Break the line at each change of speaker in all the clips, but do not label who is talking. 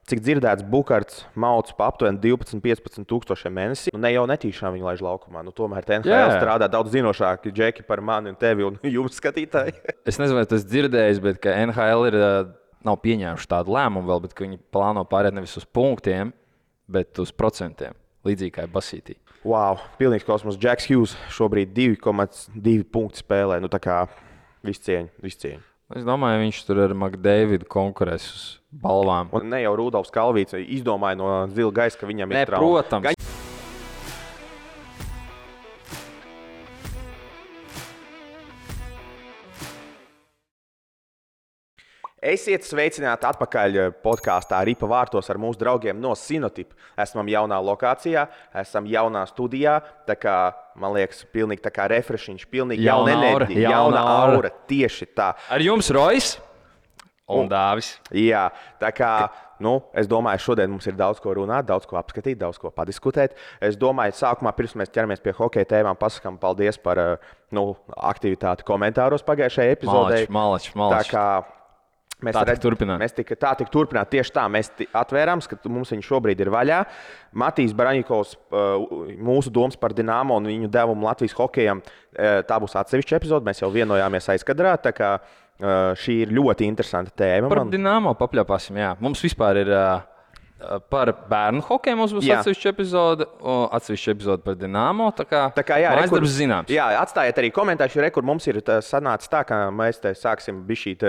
Cik dzirdēts, Bukarts mauc pa aptuveni 12-15 tūkstošiem mēnesī. Ne jau netīšām viņu laiž laukumā. Tomēr NHL strādā daudz zinošāki džeki par mani un tevi un jums skatītāji.
Es nezinu, vai tas dzirdējis, bet ka NHL nav pieņēmuši tādu lēmumu vēl, bet viņi plāno pārēt nevis uz punktiem, bet uz procentiem. Līdzīgi kā basītī.
Wow, pilnīgs kosmos. Jacks Hughes šobrīd 2,2 punktu spēlē. Tā kā viss cieņa.
Es domāju, viņš tur ar McDavidu konkurēs uz balvām.
Un ne jau Rudolfs Kalvīts izdomāja no zila gaisa, ka viņam ir
trauma. Protams.
Esiet sveicināti atpakaļ podkāstā Ripa vārtos ar mūsu draugiem no Sinotip. Esam jaunā lokācijā, esam jaunā studijā. Tā kā, man liekas, pilnīgi tā kā refreshiņš, pilnīgi jauna enerģija, jauna aura. Tieši tā.
Ar jums Rojas un Dāvis.
Jā, tā kā, es domāju, šodien mums ir daudz ko runāt, daudz ko apskatīt, daudz ko padiskutēt. Es domāju, sākumā, pirms mēs ķeramies pie hokeja tēmām, pasakām paldies par aktivitāti komentāros pagājušajā epizodē.
Malači.
Tā kā
tā tika
turpināt. Tieši tā, mēs atvērām, ka mums viņš šobrīd ir vaļā. Matīs Baraņikovs, mūsu domas par Dinamo un viņu devumu Latvijas hokejam, tā būs atsevišķa epizode. Mēs jau vienojāmies aizkadrā, tā kā šī ir ļoti interesanta tēma.
Par Dinamo papļāpāsim, jā. Mums vispār ir par bērnu hokeju mums būs atsevišķa epizode par Dinamo. Tā kā jā,
darbs
zināms.
Jā, atstājiet arī komentārus, kur mums ir sanācis tā, ka mēs te sāksim bišķīt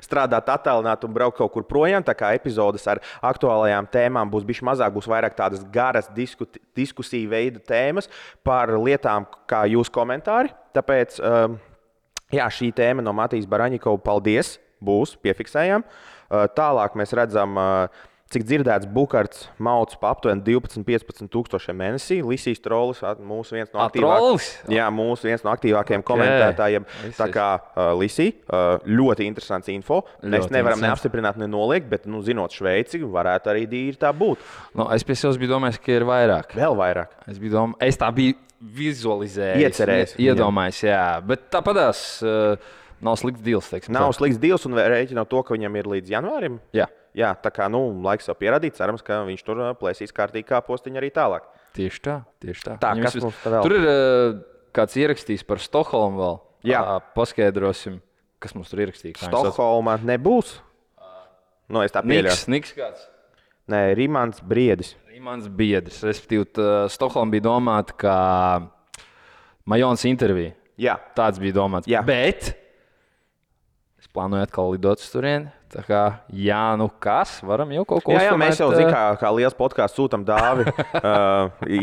strādāt attālināt un braukt kaut kur projām. Tā kā epizodes ar aktuālajām tēmām būs bišķi mazāk, būs vairāk tādas garas diskusiju veida tēmas par lietām kā jūsu komentāri. Tāpēc, šī tēma no Matīs Baraņikova, paldies, būs, piefiksējām. Tālāk mēs redzam, cik dzirdēts, Bukarts mauc pa aptuveni 12-15 tūkstošiem mēnesī. Lisijas Trolis, mūsu viens no aktīvākajiem komentētājiem. Tā kā Lisija, ļoti interesants info. Mēs nevaram neapstiprināt, nenoliegt, bet, zinot Šveici, varētu arī dīri tā būt.
Es pie sevis biju domājis, ka ir vairāk.
Vēl vairāk.
Es tā biju vizualizējis.
Iecerējis.
Iedomājis, jā. Bet tāpatās nav slikts deals, teiksim.
Nav slikts deals un rēķinot to, ka viņam ir līdz janvārim. Jā, tā kā laiks jau pierādīt, cerams, ka viņš tur plēsīs kārtīgi kā postiņu arī tālāk.
Tieši tā.
Kas mums tā vēl?
Tur ir kāds ierakstījis par Stokholmu vēl.
Jā.
Paskaidrosim, kas mums tur ierakstīja.
Stokholmā nebūs? Es tā pieļauju.
Niks kāds?
Nē, Rimants Briedis.
Respektīvi, Stokholma bija domāta kā Majons intervija.
Jā.
Tāds bija domāts.
Jā.
Bet es plānoju atkal lidot uz turieni. Tā kā, kas? Varam jau kaut ko uzstāvēt.
Jā, mēs jau kā liels podkāsts sūtam Dāvi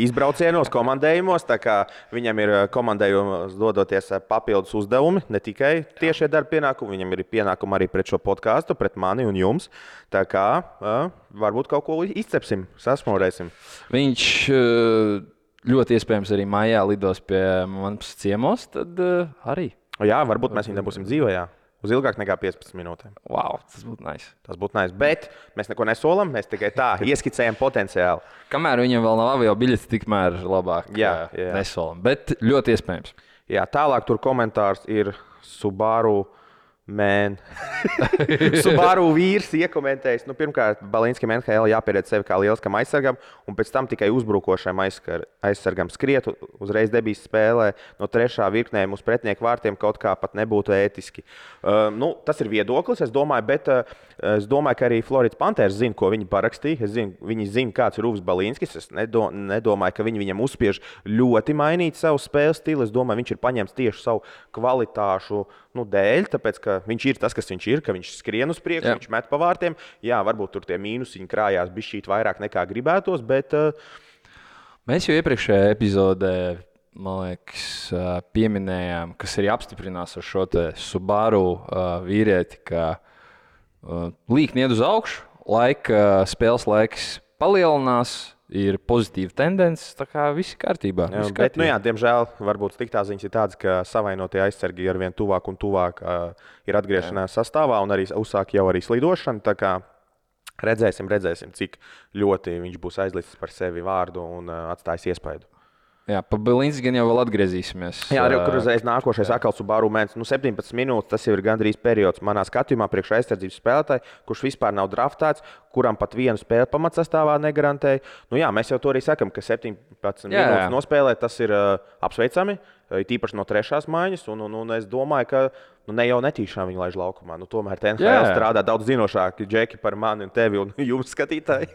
izbraucienos, komandējumos. Tā kā viņam ir komandējumos dodoties papildus uzdevumi, ne tikai tiešie darba pienākumi. Viņam ir pienākumi arī pret šo podkāstu, pret mani un jums. Tā kā varbūt kaut ko izcepsim, sasmorēsim.
Viņš ļoti iespējams arī maijā lidos pie manas ciemos, tad arī.
Jā, varbūt mēs viņu nebūsim dzīvajā. Uz ilgāk nekā 15 minūtēm.
Wow, tas būtu nice.
Tas būtu nice. Bet mēs neko nesolam, mēs tikai tā ieskicējam potenciāli.
Kamēr viņam vēl nav avio biļetes, tikmēr labāk
jā.
nesolam. Bet ļoti iespējams.
Jā, tālāk tur komentārs ir Subaru Subaru vīrs iekomentējis. Pirmkārt, Balinskam NHL jāpierēd sevi kā lieliskam aizsargam, un pēc tam tikai uzbrukošam aizsargam skriet uzreiz debijas spēlē no trešā virknējuma uz pretinieku vārtiem kaut kā pat nebūtu ētiski. Tas ir viedoklis, es domāju, bet es domāju, ka arī Floridas Panthers zina, ko viņi parakstīja. Viņi zina, kāds ir Uvs Balinskis. Es nedomāju, ka viņi viņam uzspiež ļoti mainīt savu spēles stilu. Es domāju, viņš ir paņēmis tieši savu kvalitāšu dēļ, tāpēc, ka viņš ir tas, kas viņš ir, ka viņš skrien uz priekšu, viņš met pa vārtiem. Jā, varbūt tur tie mīnusiņi krājās bišķīt vairāk nekā gribētos, bet...
Mēs jau iepriekšējā epizodē, man liekas, pieminējām, kas arī apstiprinās ar šo te Subaru vīrieti, ka līkni iet uz augšu, spēles laiks palielinās, ir pozitīva tendence, tā kā viss ir kārtībā.
Bet, diemžēl, varbūt sliktā ziņas ir tādas, ka savainotie aizsargi ar vien tuvāk un tuvāk ir atgriešanās sastāvā un arī uzsāk jau arī slidošanu. Tā kā redzēsim, cik ļoti viņš būs aizlicis par sevi vārdu un atstājis iespaidu.
Jā, pa Belinci gan jau vēl atgriezīsimies.
Jā, arī kur uzreiz nākošais atkal Subaru mēnesis. 17 minūtes, tas jau ir gandrīz periods manā skatījumā priekš aizsardzības spēlētāji, kurš vispār nav draftēts, kuram pat vienu spēli pamatsastāvā negarantēja. Jā, mēs jau to arī sakam, ka 17 minūtes nospēlēt, tas ir apsveicami, tīpaši no trešās maiņas. Un es domāju, ka ne jau netīšām viņi laiž laukumā. Tomēr NHL strādā daudz zinošāki džeki par mani un tevi un jums skatītāji.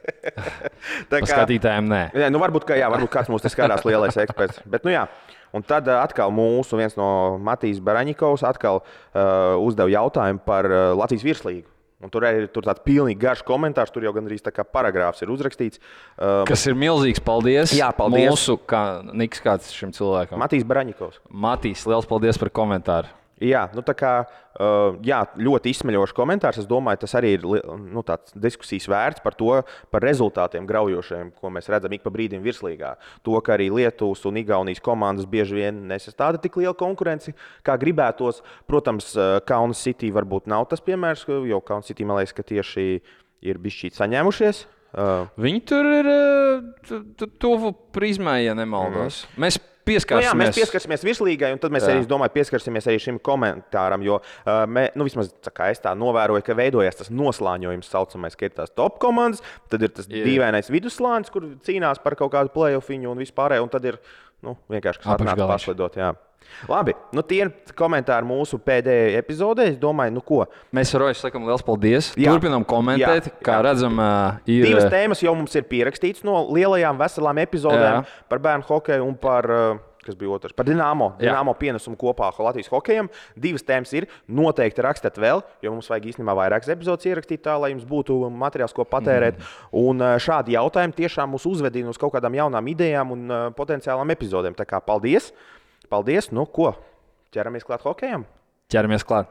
Skatītājiem nē.
Varbūt kāds mums te skatās lielais eksperts. Bet, jā. Un tad atkal mūsu viens no Matīs Baraņikovs atkal uzdeva jautājumu par Latvijas virslīgu. Un tur ir tāds pilnīgi garš komentārs, tur jau gandrīz tā kā paragrāfs ir uzrakstīts.
Kas ir milzīgs paldies.
Jā, paldies.
Mūsu, Niks kāds šim cilvēkam.
Matīs Baraņikovs.
Matīs, liels paldies par komentāru.
Jā, ļoti izsmeļošs komentārs. Es domāju, tas arī ir tāds diskusijas vērts par to, par rezultātiem graujošiem, ko mēs redzam ik pa brīdim virslīgā. To, ka arī Lietuvas un Igaunijas komandas bieži vien nesastāda tik liela konkurence, kā gribētos. Protams, Kaunas City varbūt nav tas piemērs, jo Kaunas City, man liekas, ka tieši ir bišķīt saņēmušies.
Viņi tur ir tuvu prizmai, ja nemaldos. Mēs
mēs pieskarsimies virslīgai, un tad mēs arī, domāju, pieskarsimies arī šim komentāram, jo vismaz es tā novēroju, ka veidojas tas noslāņojums, saucamais, ka ir tās top komandas, tad ir tas dīvainais vidusslānis, kur cīnās par kaut kādu play-offiņu un vispārējo, un tad ir vienkārši kas atnāk paslidot. Jā. Labi, tie ir komentāri mūsu pēdējai epizodē. Es domāju, ko.
Mēs ar Roju sakam liels paldies. Turpinām komentēt, kā redzam, ir.
Divas tēmas jau mums ir pierakstītas no lielajām veselām epizodēm par bērnu hokeju un par, kas bija otrs, par Dinamo pienesumu kopā Latvijas hokejam. Divas tēmas ir. Noteikti rakstiet vēl, jo mums vajag īstenībā vairākas epizodes ierakstīt tā, lai jums būtu materiāls, ko patērēt. Un šādi jautājumi tiešām mūs uzvedina uz kaut kādām jaunām idejām un potenciālām epizodēm. Tā kā paldies! Paldies! Ko? Ķeramies klāt hokejam?
Ķeramies klāt.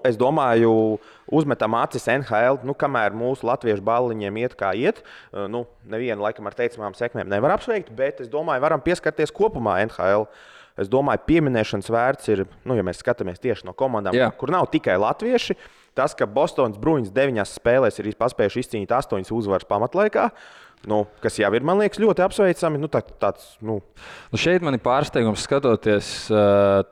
Es domāju, uzmetam acis NHL, kamēr mūsu latviešu balliņiem iet kā iet. Nevienu laikam ar teicamām sekmēm nevar apsveikt, bet es domāju, varam pieskarties kopumā NHL. Es domāju, pieminēšanas vērts ir, ja mēs skatāmies tieši no komandām, kur nav tikai latvieši. Tas, ka Bostonas Bruins 9 spēlēs ir paspējuši izcīnīt 8 uzvaras pamatlaikā. Kas jau ir, man liekas, ļoti apsveicami.
Šeit man ir pārsteigums skatoties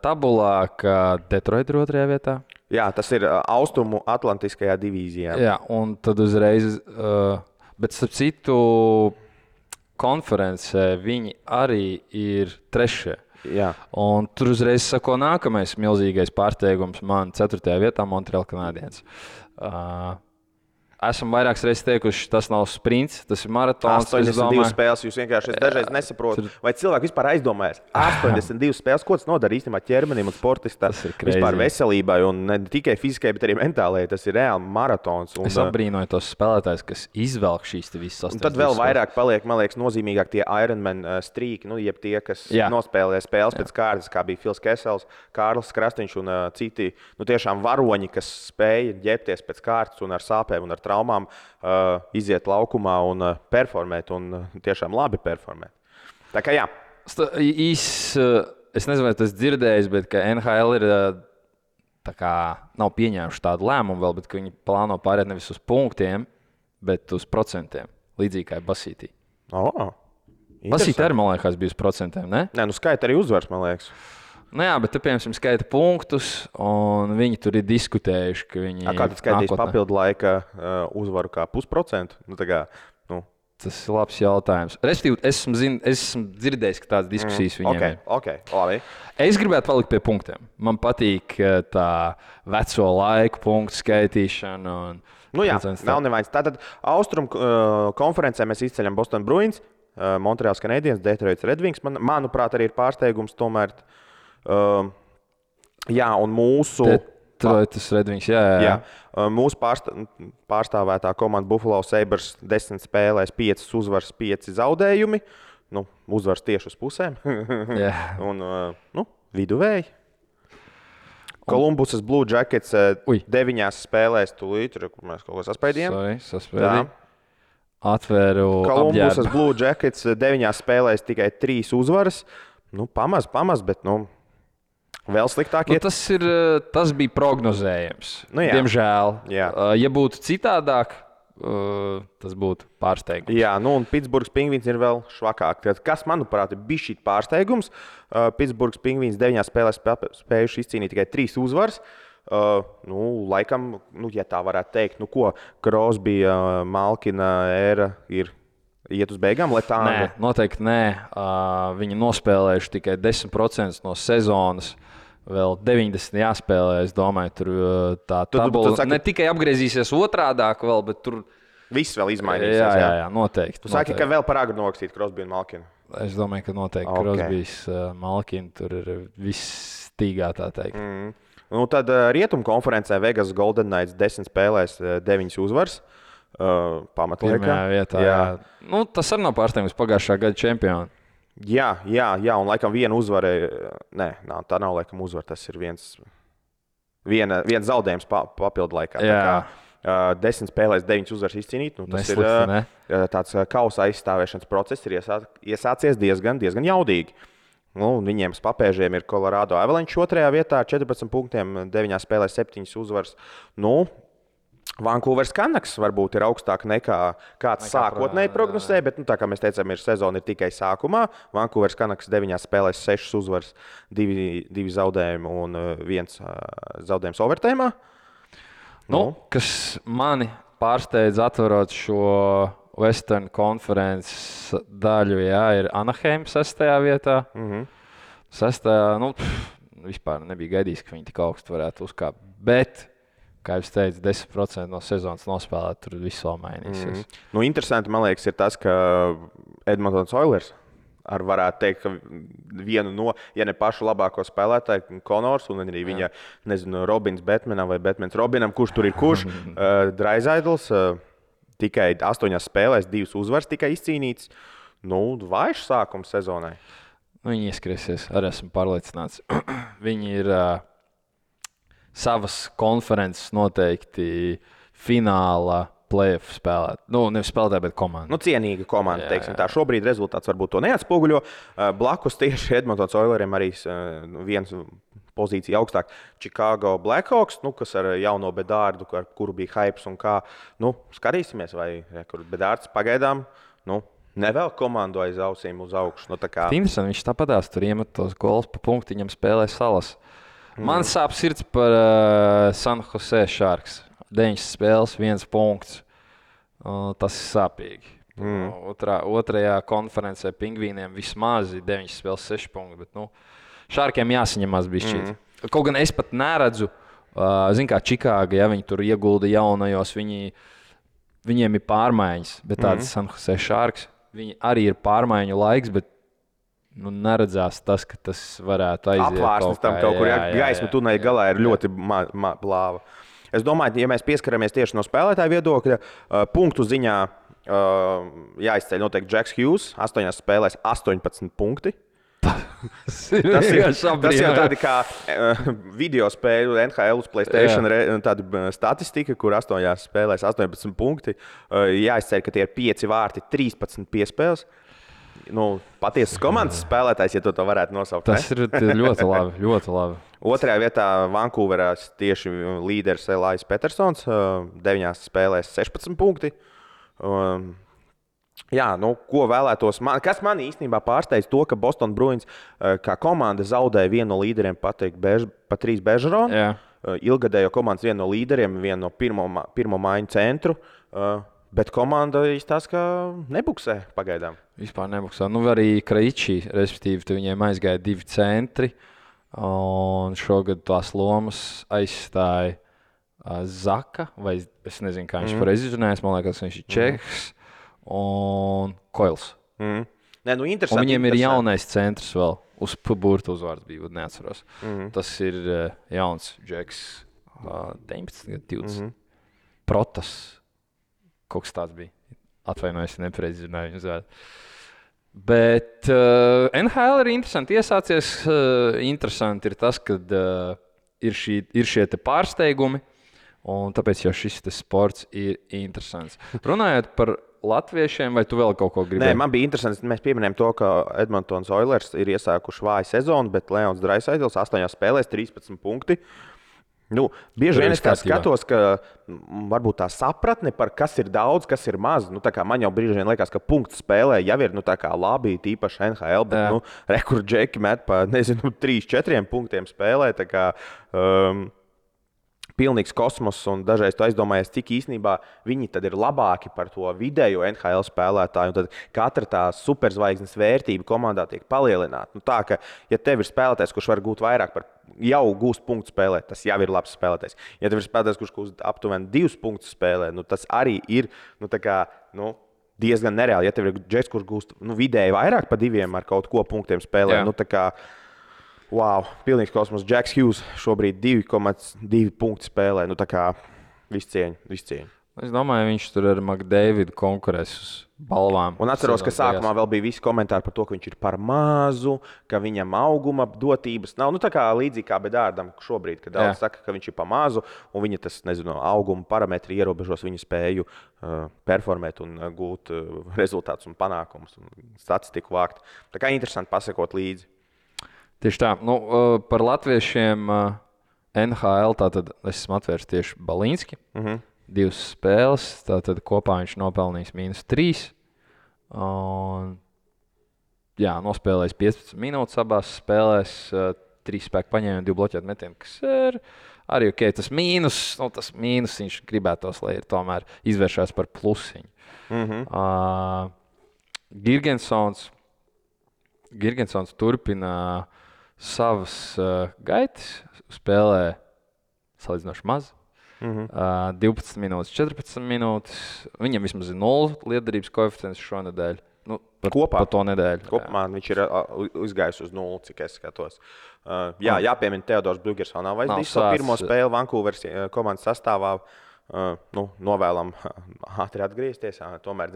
tabulā, ka Detroit ir 2. vietā.
Jā, tas ir Austrumu Atlantiskajā divīzijā.
Jā, un tad uzreiz, bet starp citu konferencē viņi arī ir 3.
Jā.
Un tur uzreiz sako nākamais milzīgais pārsteigums man 4. vietā Montreal Canadiens. Esam vairākas reizes teikuši, tas nav sprints, tas ir maratons.
82 spēles, jūs vienkārši dažreiz nesaprotat. Vai cilvēki vispār aizdomājas? 82 spēles, ko tas nodara īstenībā ķermenim un sportistam? Vispār veselībai un ne tikai fizikai, bet arī mentālajai. Tas ir reāli maratons.
Es apbrīnoju tos spēlētājus, kas izvelk šīs visas 82 spēles.
Tad vēl vairāk paliek, man liekas, nozīmīgāk tie Ironman strīki, jeb tie, kas nospēlē spēles pēc kārtas, kā bija Fils Kesels, Kārlis Krastīņš un citi tiešām varoņi, kas spēja ģērbties pēc kārtas un ar sāpēm un ar traumām iziet laukumā un performēt, un tiešām labi performēt. Tā kā jā.
Es nezinu, vai tas dzirdējis, bet ka NHL ir nav pieņēmuši tādu lēmumu vēl, bet ka viņi plāno pārēt nevis uz punktiem, bet uz procentiem, līdzīgi kā Basītī. Basītī arī, man liekas, bija uz procentiem, ne?
Nē, skaita arī uzvars, man liekas.
Jā, bet te, piemēram, skaita punktus, un viņi tur ir diskutējuši, ka viņi
kā tad skaitīs papildu laika uzvaru kā 0,5%?
Tas ir labs jautājums. Respektīvi, esmu dzirdējis, ka tādas diskusijas viņiem ir.
Labi.
Es gribētu palikt pie punktiem. Man patīk tā veco laiku punktu skaitīšana.
Nav nevainas. Tātad Austrum konferencē mēs izceļam Boston Bruins, Montreal Canadiens, Detroit Red Wings. Manuprāt, arī ir pārsteigums tomēr. Un mūsu
Detroitas Red Wings, jā.
Mūsu pārstāvētā komanda Buffalo Sabres 10 spēlēs 5 uzvaras, 5 zaudējumi. Uzvaras tieši uz pusēm. Un viduvēji. Kolumbusas Blue Jackets 9 spēlēs tūlīt, kur mēs kaut ko saspēdījām.
Atvēru
Kolumbusas Blue Jackets 9 spēlēs tikai 3 uzvaras. Pamaz, bet vēl sliktāk iet.
Tas bija prognozējams. Diemžēl. Ja būtu citādāk, tas būtu pārsteigums.
Jā, nu un Pitsburgas Pingvīns ir vēl švakāk. Tad, kas, manuprāt, ir bijis šī pārsteigums? Pitsburgas Pingvīns 9 spēlēs spējuši izcīnīt tikai 3 uzvaras. Laikam, ja tā varētu teikt, Crosby, Malkina ēra ir iet uz beigām, lai tā...
Nē, noteikti nē. Viņi nospēlējuši tikai 10% no sezonas. Vēl 90 jāspēlē, es domāju, tur tā tabula ne tikai apgriezīsies otrādāk vēl, bet tur...
Viss vēl izmainīsies.
Jā, noteikti.
Tu saki, ka vēl par agru nokstīt Crosby un Malkinu?
Es domāju, ka noteikti Crosbys, Malkina, tur ir viss stīgā, tā teikt.
Tad Rietumu konferencē Vegas Golden Knights 10 spēlēs 9 uzvaras. Pamatliekā.
Pirmajā vietā, jā. Tas arī nav pārsteigums pagājušā gada čempioni.
Jā, un laikam viena uzvara, tā nav laikam uzvara, tas ir viens zaudējums papildu laikā.
Jā.
10 spēlēs 9 uzvaras izcīnīt, tas ir tāds kausa aizstāvēšanas process, ir iesācies diezgan jaudīgi. Viņiem papēžiem ir Colorado Avalanche 2. vietā, 14 punktiem, 9 spēlēs 7 uzvaras. Vancouveras Canucks varbūt ir augstāk nekā kāds sākotnēji prognozēja, bet, tā kā mēs teicām, sezona ir tikai sākumā. Vancouveras Canucks 9 spēlēs 6 uzvaras, 2 zaudējumi un 1 zaudējums overtājumā.
Kas mani pārsteidz atverot šo Western Conference daļu, ir Anaheim 6. vietā. 6. Vispār nebija gaidījis, ka viņi tik augstu varētu uzkāpt, bet... Kā jau teicu, 10% no sezonas nospēlēt, tur viss vēl mainīsies.
Interesanti, man liekas, ir tas, ka Edmontons Oilers varētu teikt, ka vienu no, ja ne pašu labāko spēlētāju, Konors, un arī viņa, Robins Batmanam vai Batmans Robinam, kurš tur ir kurš, Draisaitls, tikai 8 spēlēs 2 uzvaras tikai izcīnīts. Vājš sākums sezonai.
Viņi ieskriesies, arī esmu pārliecināts. Viņi ir... savas konferences noteikti fināla play-off spēlēt. Nevis spēlētāji, bet komanda.
Cienīga komanda, teiksim tā. Šobrīd rezultāts varbūt to neatspoguļo. Blakus tieši Edmontons Oileriem arī viens pozīcija augstāk. Chicago Blackhawks, kas ar jauno Bedārdu, ar kuru bija hypes un kā. Skatīsimies, vai kur Bedārds pagaidām, nevēl komandu aiz ausīm uz augšu.
Interesanti, viņš tāpatās tur iemet tos gols pa punktiņam spēlē Salas. Man sāp sirds par San Jose Sharks. 9 spēles, 1 punkts. Tas ir sāpīgi. Otrajā konferencē Pingvīniem vismaz 9 spēles, 6 punkti. Bet, Sharkiem jāsaņemās bišķīt. Kaut gan es pat neredzu, kā Čikāga, ja viņi tur iegulda jaunajos, viņiem ir pārmaiņas. Bet tāds San Jose Sharks, viņi arī ir pārmaiņu laiks, bet neredzās tas, ka tas varētu aiziet
apvārsnes tam kaut kur. Gaisma tuneļa galā ir ļoti blāva. Es domāju, ja mēs pieskaramies tieši no spēlētāja viedokļa, punktu ziņā jāizceļ noteikti Jacks Hughes, 8 spēlēs 18 punkti. Tas ir tādi kā video spēļu NHL uz PlayStation tāda statistika, kur 8 spēlēs 18 punkti. Jāizceļ, ka tie ir 5 vārti, 13 piespēles. Patiesas komandas spēlētājs, ja to varētu nosaukt.
Tas ir ļoti labi, ļoti labi.
2. vietā Vancouverā tieši līderis Elais Petersons, 9 spēlēs 16 punkti. Ko vēlētos? Kas man īstenībā pārsteidz to, ka Boston Bruins kā komanda zaudēja vienu no līderiem Patrīs Bežeronu. Ilgadējo komandas vienu no līderiem, vienu no pirmo maiņu centru. Bet komanda izstāsta, ka nebuksē pagaidām.
Vispār nebuksē. Arī Kraičī, respektīvi, viņiem aizgāja 2 centri. Un šogad tās lomas aizstāja Zaka, vai es nezinu, kā viņš pareizi izrunājas. Man liekas, viņš ir Čehs un Koils. Viņiem ir jaunais centrs vēl. Uz burta uzvārds bija, neatceros. Tas ir jauns Džeks, 19, 20. Protas. Kaut kas tāds bija. Atvainojos, nepareizi zināju viņu uzvārdu. Bet NHL ir interesanti. Iesācies interesanti ir tas, ka ir šie te pārsteigumi, un tāpēc jau šis sports ir interesants. Runājot par latviešiem, vai tu vēl kaut ko gribēji?
Nē, man bija interesanti. Mēs pieminējām to, ka Edmontons Oilers ir iesākuši vāju sezonu, bet Leons Draisaitls 8 spēlēs 13 punkti. Nu, bieži vien es
kārtībā.
skatos, ka varbūt tā sapratne par kas ir daudz, kas ir maz. Nu, man jau brīži vien liekas, ka punktu spēlē jau ir labi, tīpaši NHL, bet rekordžeki met pa 3-4 punktiem spēlē. Pilnīgs kosmos, un dažreiz tu aizdomājies, cik īstenībā viņi tad ir labāki par to vidējo NHL spēlētāju. Tad katra tā superzvaigznes vērtība komandā tiek palielināta. Nu, tā, ka, ja tev ir spēlētājs, kurš var gūt vairāk par jau gūst punktu spēlē, tas jau ir labs spēlētājs. Ja tev ir spēlētājs, kurš gūst aptuveni 2 punktus spēlē, nu, tas arī ir diezgan nereāli. Ja tev ir džeks, kurš gūst vidēji vairāk par 2 ar kaut ko punktiem spēlē, wow, pilnīgs kosmos. Džeks Hughes šobrīd 2,2 punktu spēlē. Viss cieņa.
Es domāju, viņš tur ar McDavidu konkurēs uz balvām.
Un atceros, ka sākumā vēl bija visi komentāri par to, ka viņš ir par mazu, ka viņam auguma dotības nav. Līdzīgi kā Bedārdam šobrīd, kad daudz saka, ka viņš ir par mazu, un viņa auguma parametri ierobežos viņa spēju performēt un gūt rezultātus un panākumus un statistiku vākt. Tā kā interesanti pasakot līdzi.
Tieši tā. Par latviešiem NHL tātad es esmu atvērs tieši Balīnski. 2 spēles, tātad kopā viņš nopelnījis -3. Nospēlējis 15 minūtes abās spēlēs, 3 spēku paņēma un 2 bloķētu metienu, kas ir arī ok. Tas mīnus viņš gribētos, lai ir tomēr izvēršās par plusiņu. Girgensons turpina savas gaitas, spēlē salīdzinoši maz. 12 minūtes, 14 minūtes. Viņam vismaz ir 0 lietderības koeficients šonedēļ. Kopā par to nedēļu.
Kopumā viņš ir izgājis uz 0, cik es skatos. Jāpiemina Teodors Bļugers vēl nav vairs pirmo spēli Vancouveras komandas sastāvā. Novēlam ātri atgriezties. Tomēr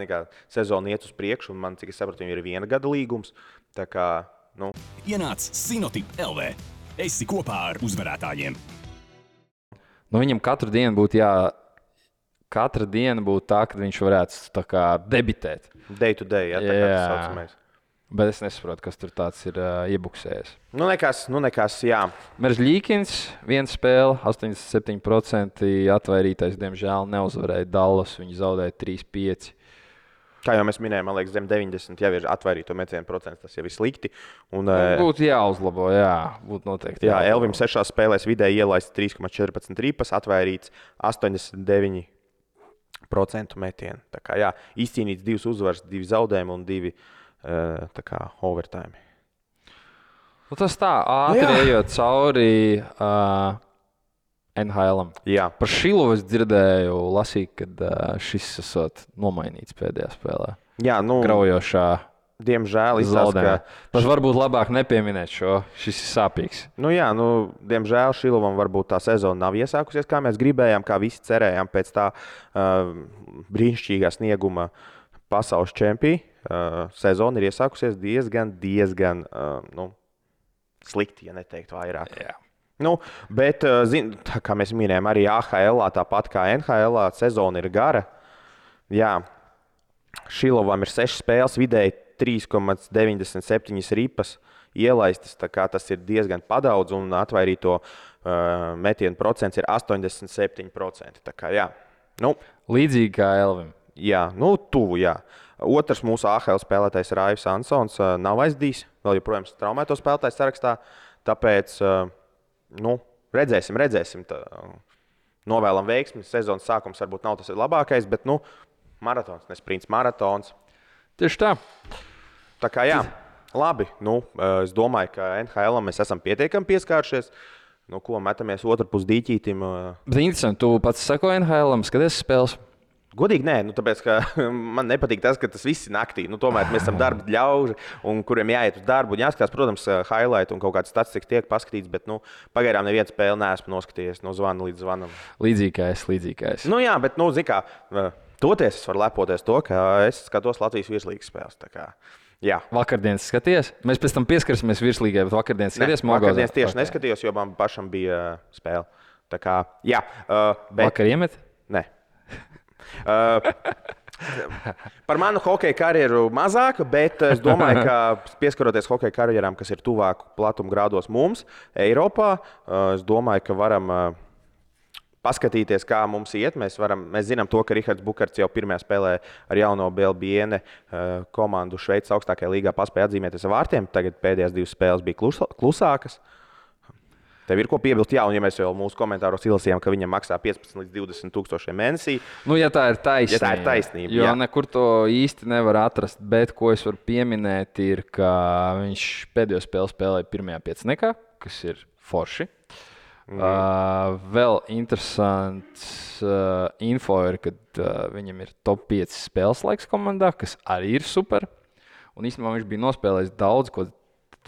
sezona iet uz priekšu, un man, cik es sapratu, ir 1 gada līgums.
Ienāc Sinotip LV. Esi kopā ar uzvarētājiem.
Viņam katru dienu būtu katra diena būtu tā, kad viņš varētu debitēt.
Day to day, tā kā tas saucamais.
Bet es nesaprotu, kas tur tāds ir iebuksējis.
Nekas, jā.
Meržļīkins, 1 spēle, 87% atvairītais, diemžēl neuzvarēja Dallas. Viņi zaudēja 3-5.
Kā jau mēs minējām, man liekas, zem 90 jau ir atvairīto metienu procents, tas jau ir slikti.
Būtu jāuzlabo, būtu noteikti.
Elvim 6 spēlēs vidēji ielaists 3,14 ripas, atvairīts 89% metienu. Tā kā izcīnīts 2 uzvaras, 2 zaudējumi un 2 overtime.
Tas tā, ātri ejot cauri NHL-am. Par Šilovu es dzirdēju, lasīju, kad šis esot nomainīts pēdējā spēlē. Graujošā.
Diemžēl izsaka.
Varbūt labāk nepieminēt šo. Šis ir sāpīgs.
Diemžēl Šilovam varbūt tā sezona nav iesākusies, kā mēs gribējām, kā visi cerējām pēc tā brīnišķīgā snieguma pasaules čempī. Sezona ir iesākusies diezgan slikti, ja neteikt vairāk. Bet, kā mēs minējām, arī AHL, tāpat kā NHL, sezona ir gara. Šilovam ir 6 spēles, vidēji 3,97 ripas ielaistas. Tas ir diezgan padaudz, un atvairīto metienu procents ir 87%.
Līdzīgi kā Elvim.
Tuvu. Otrs mūsu AHL spēlētājs Raivs Ansons nav aizdījis, vēl joprojām traumēto spēlētāju sarakstā. Tāpēc redzēsim. Novēlam veiksmi. Sezonas sākums varbūt nav tas labākais, bet maratons, ne sprints, maratons.
Tieši tā.
Tā kā labi. Es domāju, ka NHL mēs esam pietiekami pieskāršies. Ko metamies otrpus dīķītim.
Bet interesanti, tu pats sako NHL, skaties spēles?
Godīgi nē, tāpēc, ka man nepatīk tas, ka tas viss ir naktī. Tomēr mēs esam darba ļauži, kuriem jāiet uz darbu. Jāskatās, protams, highlight un kaut kāds statistikas tiek paskatīts, bet pagaidām nevienu spēli neesmu noskatījies no zvana līdz zvanam.
Līdzīgi kā es.
Bet, zini kā, toties es varu lepoties to, ka es skatos Latvijas virslīgas spēles.
Vakardienas skaties? Mēs pēc tam pieskarsimies virslīgai, bet vakardienas skaties Mogozā?
Vakardienas tieši neskatījos, jo man pašam bija spēle. Tā kā,
Vakar iemet?
Nē. Par manu hokeja karjeru mazāk, bet es domāju, ka pieskaroties hokeja karjerām, kas ir tuvāk platuma grādos mums, Eiropā, es domāju, ka varam paskatīties, kā mums iet. Mēs zinām, to, ka Rihards Bukarts jau pirmajā spēlē ar jauno Belbiene komandu Šveices augstākajā līgā paspēja atzīmēties ar vārtiem. Tagad pēdējās 2 spēles bija klusākas. Tev ir ko piebilst, jā, un ja mēs jau mūsu komentāros izlasījām, ka viņam maksā 15 līdz 20 tūkstoši mēnesī.
Ja tā ir taisnība.
Ja tā ir taisnība,
jo nekur to īsti nevar atrast, bet ko es varu pieminēt, ir, ka viņš pēdējo spēli spēlēja pirmajā pieciniekā, kas ir forši. Vēl interesants info ir, ka viņam ir top 5 spēles laiks komandā, kas arī ir super. Un īstenībā viņš bija nospēlējis daudz, ko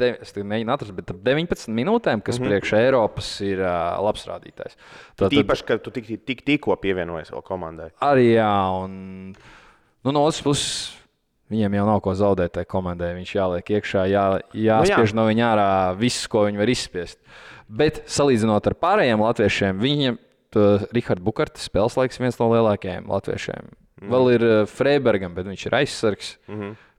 es mēģinu atrast, bet ap 19 minūtēm, kas priekš Eiropas ir labs rādītājs.
Tīpaši, ka tu tikko pievienojies vēl komandai.
Arī jā, un no otras puses viņiem jau nav ko zaudēt tai komandai. Viņš jāliek iekšā, jāspiež no viņa ārā viss, ko viņi var izspiest. Bet salīdzinot ar pārējiem latviešiem, viņiem Rihards Bukarts spēles laiks viens no lielākajiem latviešiem. Vēl ir Freibergam, bet viņš ir aizsargs.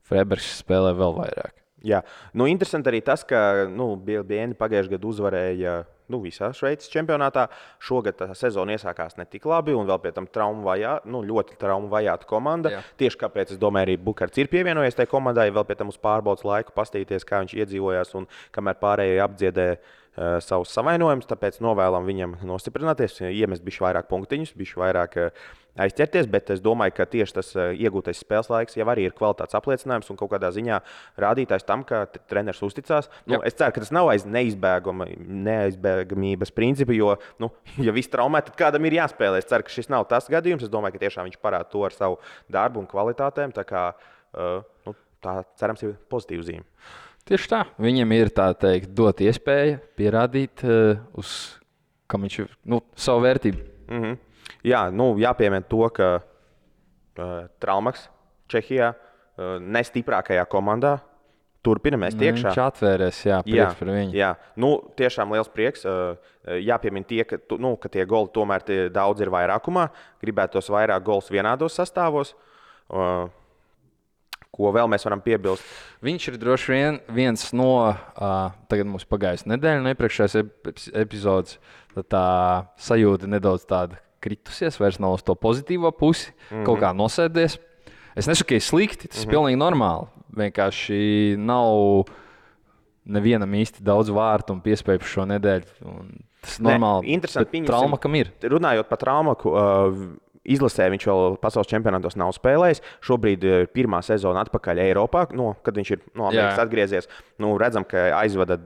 Freibergs spēlē vēl vairāk.
Jā, interesanti arī tas, ka Belbiene pagājušajā gadā uzvarēja visā Šveices čempionātā. Šogad tā sezona iesākās ne tik labi, un vēl pie tam ļoti traumu vajāta komanda. Jā. Tieši kāpēc, es domāju, arī Bukarts ir pievienojies tai komandai, vēl pie tam uz pārbaudas laiku pastīties, kā viņš iedzīvojās un kamēr pārējie apdziedē savus savainojumus. Tāpēc novēlam viņam nostiprināties, iemest bišķi vairāk punktiņus, bišķi vairāk aizķerties, bet es domāju, ka tieši tas iegūtais spēles laiks jau arī ir kvalitātes apliecinājums un kaut kādā ziņā rādītājs tam, ka treneris uzticās. Es ceru, ka tas nav aiz neaizbēgamības principa, jo, ja viss traumē, tad kādam ir jāspēlē. Es ceru, ka šis nav tas gadījums. Es domāju, ka tiešām viņš parāda to ar savu darbu un kvalitātēm. Tā kā tā cerams ir pozitīva zīme.
Tieši tā. Viņam ir tā teikt, dot iespēju pierādīt, kam viņš ir savu vērtību.
Jā, jāpiemina to, ka Traumaks Čehijā nestiprākajā komandā turpina mest iekšā.
Viņš atvērēs, prieks par viņu.
Jā, tiešām liels prieks. Jāpiemina ka tie goli tomēr daudz ir vairākumā. Gribētos vairāk gols vienādos sastāvos. Ko vēl mēs varam piebilst?
Viņš ir droši vien viens no, tagad mums pagājusi nedēļa, no iepriekšējās epizodes, tad tā sajūta nedaudz tāda kritusies, vairs nav uz to pozitīvo pusi, kaut kā nosēdies. Es nesaku, ka ir slikti, tas ir pilnīgi normāli. Vienkārši nav nevienam īsti daudz vārtu un piespēju šo nedēļu. Tas ir normāli, bet Traumakam ir.
Runājot par Traumaku, izlasē viņš vēl pasaules čempionātos nav spēlējis. Šobrīd ir pirmā sezona atpakaļ Eiropā, kad viņš ir no Amerikas atgriezies. Redzam, ka aizvada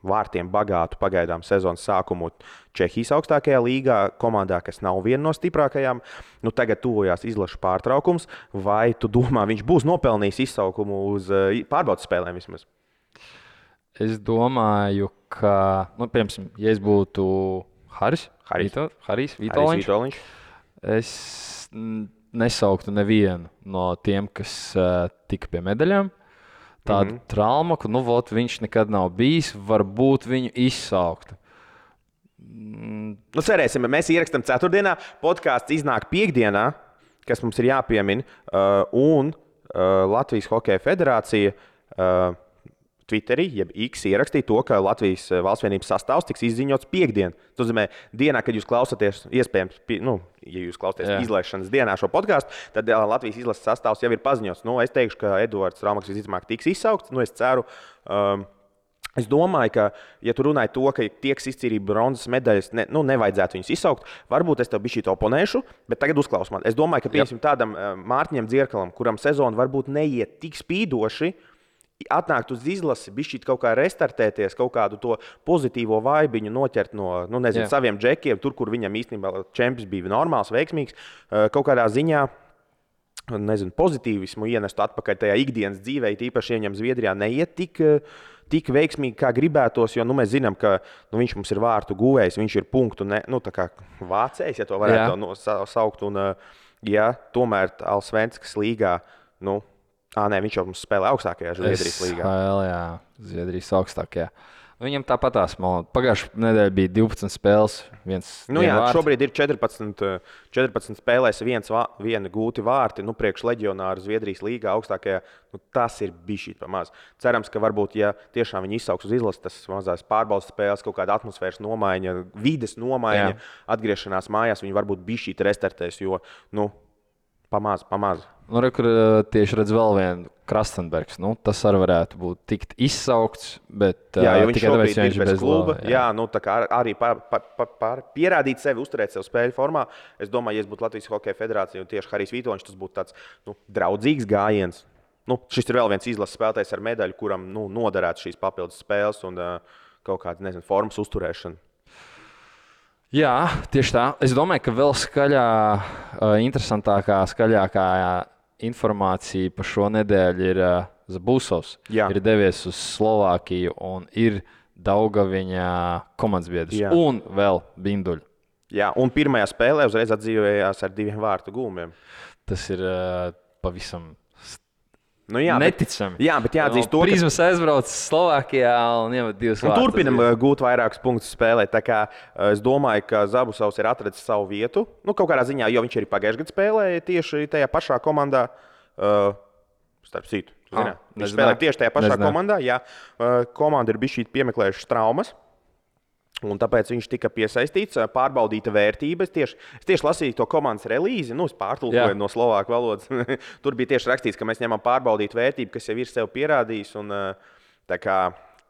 vārtiem bagātu pagaidām sezonas sākumu Čehijas augstākajā līgā, komandā, kas nav viena no stiprākajām. Tagad tuvojās izlašu pārtraukums. Vai tu domā, viņš būs nopelnījis izsaukumu uz pārbaudas spēlēm vismaz?
Es domāju, ka, piemēram, ja es būtu Harijs Vitoļņš, es nesauktu nevienu no tiem, kas tika pie medaļām. Tādu Traumaku, viņš nekad nav bijis, varbūt viņu izsauktu.
Cerēsim, mēs ierakstām ceturtdienā, podkāsts iznāk piekdienā, kas mums ir jāpiemina, un Latvijas Hokeja federācija Twitterī, jeb X ierakstīja to, ka Latvijas valsts vienības sastāvs tiks izziņots piekdien. Tas nozīmē, dienā, kad jūs klausāties, iespējams, ja jūs klausāties izlaišanas dienā šo podkāstu, tad Latvijas izlases sastāvs jau ir paziņots. Es teikšu, ka Eduards Traumaks visticamāk tiks izsaukts. Es ceru, es domāju, ka, ja tu runāji to, ka tieks izcīnīt bronzas medaļas, nevajadzētu viņus izsaukt, varbūt es tev bišķīt oponēšu, bet tagad uzklaus man. Es domāju, ka piemēram tādam Mārtiņam Dzierkalam, kuram sezona varbūt neiet tik spīdoši, atnākt uz izlasi, bišķīt kaut kā restartēties, kaut kādu to pozitīvo vaibiņu noķert no saviem džekiem, tur, kur viņam īstenībā čempions bija normāls, veiksmīgs, kaut kādā ziņā pozitīvismu ienestu atpakaļ tajā ikdienas dzīvē, tīpaši viņam Zviedrijā neiet tik veiksmīgi, kā gribētos, jo mēs zinām, ka viņš mums ir vārtu guvējs, viņš ir punktu tā kā vācējs, ja to varētu saukt, un tomēr Allsvenskas līgā, viņš jau mums spēlē augstākajā Zviedrijas līgā.
Zviedrijas augstākajā. Viņam tāpatās, pagājušajā nedēļā bija 12 spēles.
Šobrīd ir 14 spēlēs, viena gūti vārti. Priekš leģionāru Zviedrijas līgā augstākajā. Tas ir bijis pamazs. Cerams, ka varbūt, ja tiešām viņi izsauks uz izlases, tas mazās pārbaudas spēles, kaut kāda atmosfēras nomaiņa, vides nomaiņa, atgriešanās mājās, viņi varbūt bijis restartēs, jo pamazs.
Kur tieši redz vēl vienu Krastenbergs. Tas arī varētu būt tikt izsaukts, bet
viņš
tikai tāpēc,
ir bez kluba. Tā kā arī pierādīt sevi, uzturēt sevi spēļu formā. Es domāju, ja es būtu Latvijas Hokeja Federācija un tieši Harijs Vitoņš, tas būtu tāds draudzīgs gājiens. Šis ir vēl viens izlases spēlētājs ar medaļu, kuram noderētu šīs papildus spēles un kaut kāda formas uzturēšana.
Jā, tieši tā. Es domāju, ka vēl skaļākā informācija par šo nedēļu ir Zabūsovs. Ir devies uz Slovākiju un ir Daugaviņa komandas biedrs. Un vēl Binduļu.
Jā, un pirmajā spēlē uzreiz atdzīvojās ar 2 vārtu gūmiem.
Tas ir pavisam
neticami. Jā, bet jāatzīst to,
ka Prizmas aizbrauc Slovākijā un iemet 2 vārtus.
Turpinam gūt vairākus punktus spēlē. Tā kā es domāju, ka Zabusovs ir atradzis savu vietu. Kaut kādā ziņā, jo viņš arī pagājušajā gadā spēlēja tieši tajā pašā komandā. Starp citu, viņš spēlēja tieši tajā pašā komandā. Jā, komanda ir bijusi piemeklējušas traumas. Un tāpēc viņš tika piesaistīts, pārbaudīta vērtība. Es tieši lasīju to komandas relīzi, es pārtulkoju no slovāku valodas. Tur bija tieši rakstīts, ka mēs ņemam pārbaudīt vērtību, kas jau ir sev pierādījis.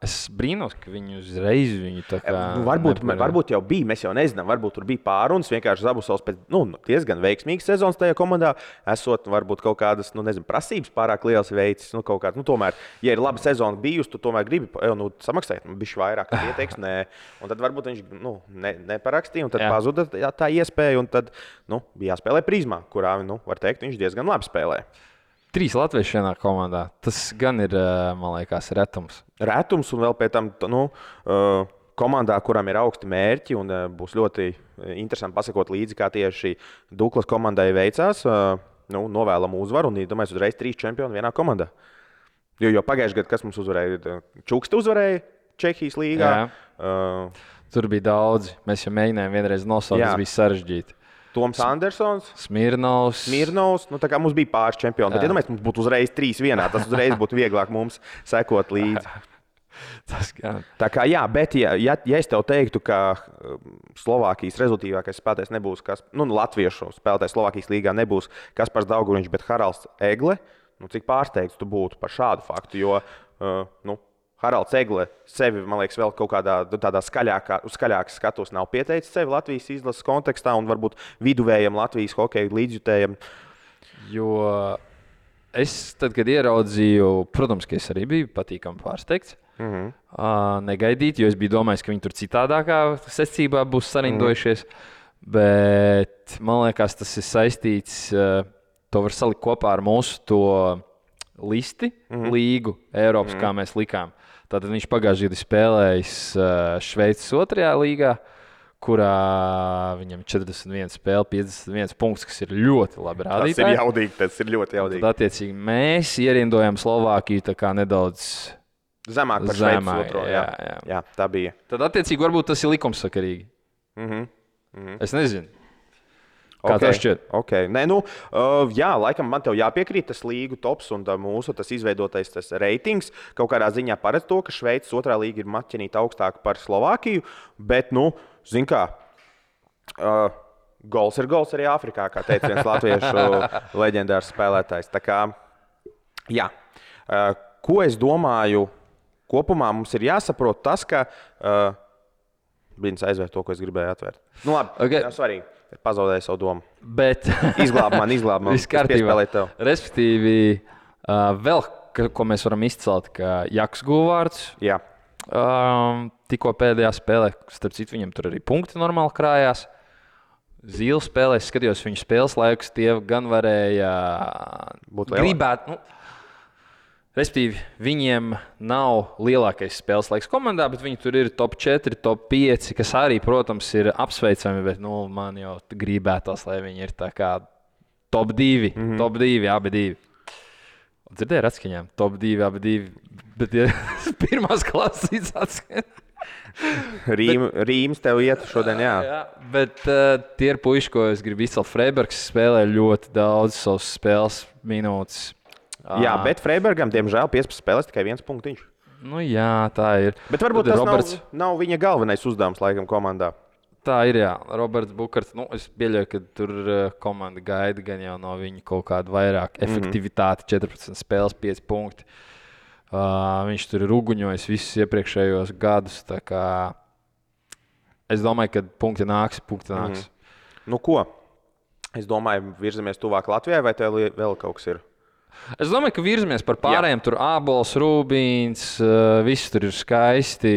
Es brīnos, ka viņi uzreiz viņu tā kā...
Varbūt jau bija, mēs jau nezinām. Varbūt tur bija pārunas, vienkārši Zabusovs pēc diezgan veiksmīgas sezonas tajā komandā. Esot varbūt kaut kādas, prasības pārāk liels veicis. Tomēr, ja ir laba sezona bijusi, tu tomēr gribi samaksāt. Bišķi vairāk pieteiks, nē. Un tad varbūt viņš neparakstīja, un tad pazuda tā iespēja. Un tad bija jāspēlē Prizmā, kurā, var teikt, viņš diezgan labi spēlē.
3 latvieši vienā komandā. Tas gan ir, man liekas, retums.
Retums un vēl pēc tam komandā, kuram ir augsti mērķi un būs ļoti interesanti pasakot līdzi, kā tieši Duklas komandai veicās. Novēlam uzvaru un domāju, uzreiz 3 čempioni vienā komandā. Jo pagājušajā gadā, kas mums uzvarēja? Čukste uzvarēja Čehijas līgā.
Tur bija daudzi. Mēs jau mēģinājām vienreiz nosaukt, tas bija sarežģīti.
Toms Andersons,
Smirnovs.
Tā kā mums bija pāris čempioni. Tad, mums būtu uzreiz 3 vienā. Tas uzreiz būtu vieglāk mums sekot līdzi. Tā kā jā, bet ja es tev teiktu, ka Slovākijas rezultātīvākais spēlētājs nebūs latviešu spēlētājs Slovākijas līgā nebūs Kaspars Dauguviņš, bet Haralds Egle, cik pārsteigts tu būtu par šādu faktu, jo Haralds Egle sevi, man liekas, vēl kaut kādā tādā skaļākas skatos nav pieteicis sevi Latvijas izlases kontekstā un varbūt viduvējam Latvijas hokeja līdzjutējam.
Jo es tad, kad ieraudzīju, protams, ka es arī biju patīkami pārsteigts. Negaidīt, jo es biju domājis, ka viņi tur citādākā secībā būs sarindojušies. Bet man liekas, tas ir saistīts, to var salikt kopā ar mūsu to listi, līgu Eiropas, kā mēs likām. Tātad viņš pagājušajā gadā spēlējis Šveices 2. līgā, kurā viņam 41 spēle, 51 punkts, kas ir ļoti labi rādītāji.
Tas ir ļoti jaudīgi.
Tad, attiecīgi, mēs ierindojam Slovākiju tā kā nedaudz
zemāk par Šveices 2. Jā, tā bija.
Tad, attiecīgi, varbūt tas ir likumsakarīgi. Es nezinu. Kā tev šķiet?
Okay. Nē, jā, laikam man tev jāpiekrīt tas līgu tops un mūsu tas izveidotais tas reitings. Kaut kādā ziņā paredz to, ka Šveices 2. līga ir maķinīta augstāk par Slovākiju, bet, zin kā, gols ir gols arī Āfrikā, kā teica viens latviešu leģendārs spēlētājs. Tā kā, jā, ko es domāju, kopumā mums ir jāsaprot tas, ka Brīdis aizvērt to, ko es gribēju atvērt. Labi, nav svarīgi. Pazaudēju savu domu.
Bet
izglāb man.
Viss kārtībā. Respektīvi, vēl, ko mēs varam izcelt, ka Jaks Guvārds tikko pēdējā spēlē, starp citu, viņam tur arī punkti normāli krājās. Zīle spēlē, es skatījos viņu spēles laikus, tie gan varēja gribēt. Respektīvi, viņiem nav lielākais spēles laiks komandā, bet viņi tur ir top 4, top 5, kas arī, protams, ir apsveicami, bet man jau gribētos, lai viņi ir tā kā top 2, top 2, abi 2. Dzirdēju ar atskaņām, top 2, abi 2, bet ja pirmās klases atskaņām.
Rīms tev iet šodien, jā.
Bet tie ir puiši, ko es gribu izcelt. Freibergs spēlē ļoti daudz savas spēles minūtes.
Jā, bet Freibergam, diemžēl, 15 spēlēs tikai 1 punktiņš.
Nu jā, tā ir.
Bet varbūt
Tad
tas nav viņa galvenais uzdevums laikam komandā.
Tā ir, jā. Roberts Bukarts, es pieļauju, ka tur komanda gaida gan jau no viņa kaut kādu vairāk efektivitāti, 14 spēles, 5 punkti. Viņš tur ir uguņojis visus iepriekšējos gadus, tā kā es domāju, ka punkti nāks.
Nu ko? Es domāju, virzamies tuvāk Latvijai, vai tev vēl kaut kas ir?
Es domāju, ka virzamies par pārējiem. Tur Ābols, Rūbīns, viss tur ir skaisti.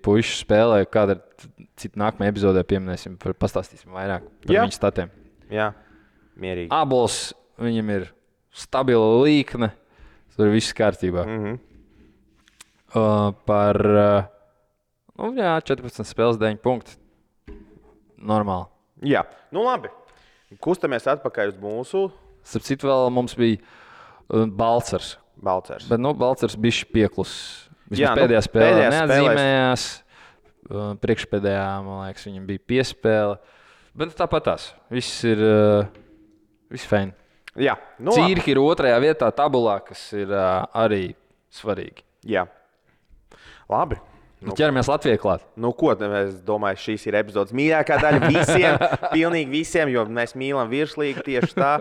Puiši spēlē, kāda ir cita nākamā epizodē pieminēsim, pastāstīsim vairāk par viņu statiem.
Jā, mierīgi.
Ābols, viņam ir stabila līkne, tur ir viss kārtībā. Par 14 spēles 9 punkti. Normāli.
Jā, nu labi. Kustamies atpakaļ uz mūsu.
Starp citu vēl mums bija Balcers. Bet Balcers bija pieklus. Pēdējā spēlē neatzīmējās. Priekšpēdējā, man liekas, viņam bija piespēle. Bet tāpat tās. Viss ir fēni.
Jā, nu
Cīrhi ir 2. vietā tabulā, kas ir arī svarīgi.
Jā. Labi.
Ķeramies Latvijai klāt.
Nu ko, es domāju, šīs ir epizodes mīļākā daļa visiem, pilnīgi visiem, jo mēs mīlam virslīgi tieši tā.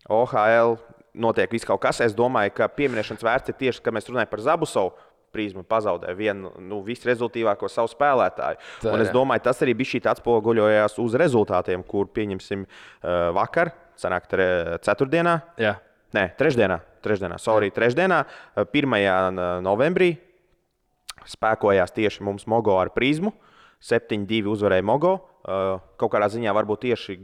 OHL notiek viss kaut kas. Es domāju, ka pieminēšanas vērts ir tieši, kad mēs runājam par Zabusovu. Prizma pazaudēja vienu visrezultīvāko savu spēlētāju. Un es domāju, tas arī bija šī atspoguļojās uz rezultātiem, kur pieņemsim vakar, sanāk ceturtdienā.
Jā.
Nē, trešdienā. Trešdienā, 1. novembrī spēkojās tieši mums Mogo ar Prizmu. 7-2 uzvarēja Mogo. Kaut kādā ziņā varbūt tieši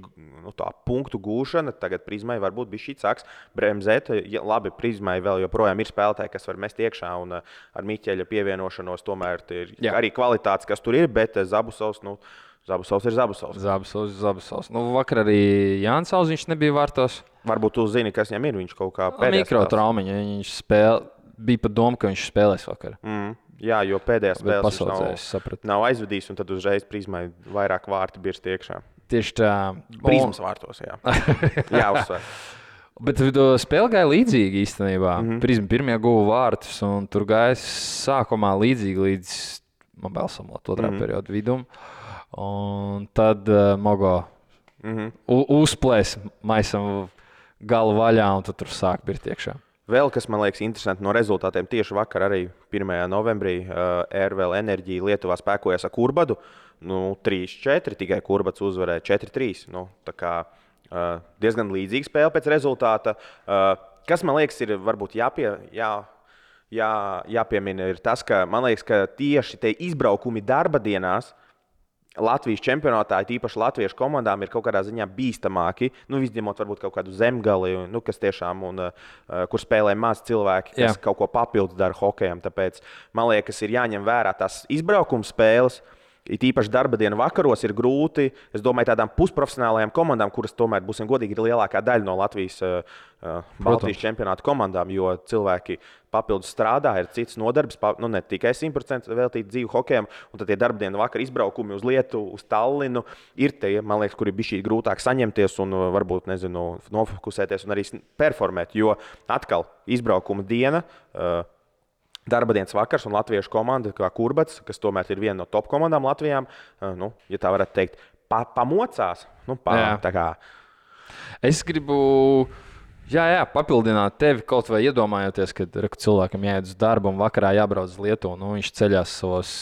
tā punktu gūšana. Tagad Prizmai varbūt bija šī sāks bremzēt. Labi, Prizmai vēl joprojām ir spēlētāji, kas var mest iekšā. Un ar Miķeļa pievienošanos tomēr ir arī kvalitātes, kas tur ir. Bet Zabusovs ir Zabusovs.
Vakar arī Jānis Auziņš nebija vārtos.
Varbūt tu zini, kas viņam ir. Viņš kaut kā pēdējā
mikrotraumiņa. Viņš bija pat doma, ka viņš spēlēs vakar.
Jā, jo pēdējā spēlē nav aizvedījis, un tad uzreiz Prizmai vairāk vārti birst iekšā.
Tieši tā.
Prizmas vārtos, jā. Jā, uzsver.
Bet spēle gāja līdzīgi īstenībā. Prizma pirmie guva vārtus, un tur gāja sākumā līdzīgi līdz Mobilsamot 2. periodu vidum. Un tad Mogo uzplēs maisam galu vaļā, un tad tur sāk birst iekšā.
Vēl kas man liekas interesanti no rezultātiem, tieši vakar arī 1. novembrī RVL Enerģija Lietuvā spēkojas ar Kurbadu. 3-4, tikai Kurbats uzvarēja 4-3. Tā kā diezgan līdzīga spēle pēc rezultāta. Kas man liekas ir varbūt jāpiemina ir tas, ka man liekas, ka tieši tie izbraukumi darba dienās Latvijas čempionātā, īpaši latviešu komandām, ir kaut kādā ziņā bīstamāki. Izņemot varbūt kaut kādu Zemgali, kas tiešām, kur spēlē maz cilvēki, kas kaut ko papildus dara hokejam. Tāpēc man liekas, ir jāņem vērā tās izbraukuma spēles. Īpaši darba dienu vakaros ir grūti. Es domāju, tādām pusprofesionālajām komandām, kuras tomēr, būsim godīgi, ir lielākā daļa no Latvijas Baltijas čempionāta komandām, jo cilvēki papildus strādā, ir cits nodarbs, ne tikai 100% veltīt dzīvu hokejam. Un tad tie darba dienu vakar izbraukumi uz Lietuvu, uz Tallinu ir tie, man liekas, kuri bija šī grūtāk saņemties un varbūt, nofokusēties un arī performēt. Jo atkal izbraukuma diena. Darba dienas vakars un latviešu komanda, kā Kurbats, kas tomēr ir viena no top komandām Latvijā, ja tā varētu teikt, pamocās. Tā kā.
Es gribu papildināt tevi kaut vai iedomājoties, ka cilvēkam jāiet uz darbu un vakarā jābrauc uz Lietuvu. Viņš ceļās savos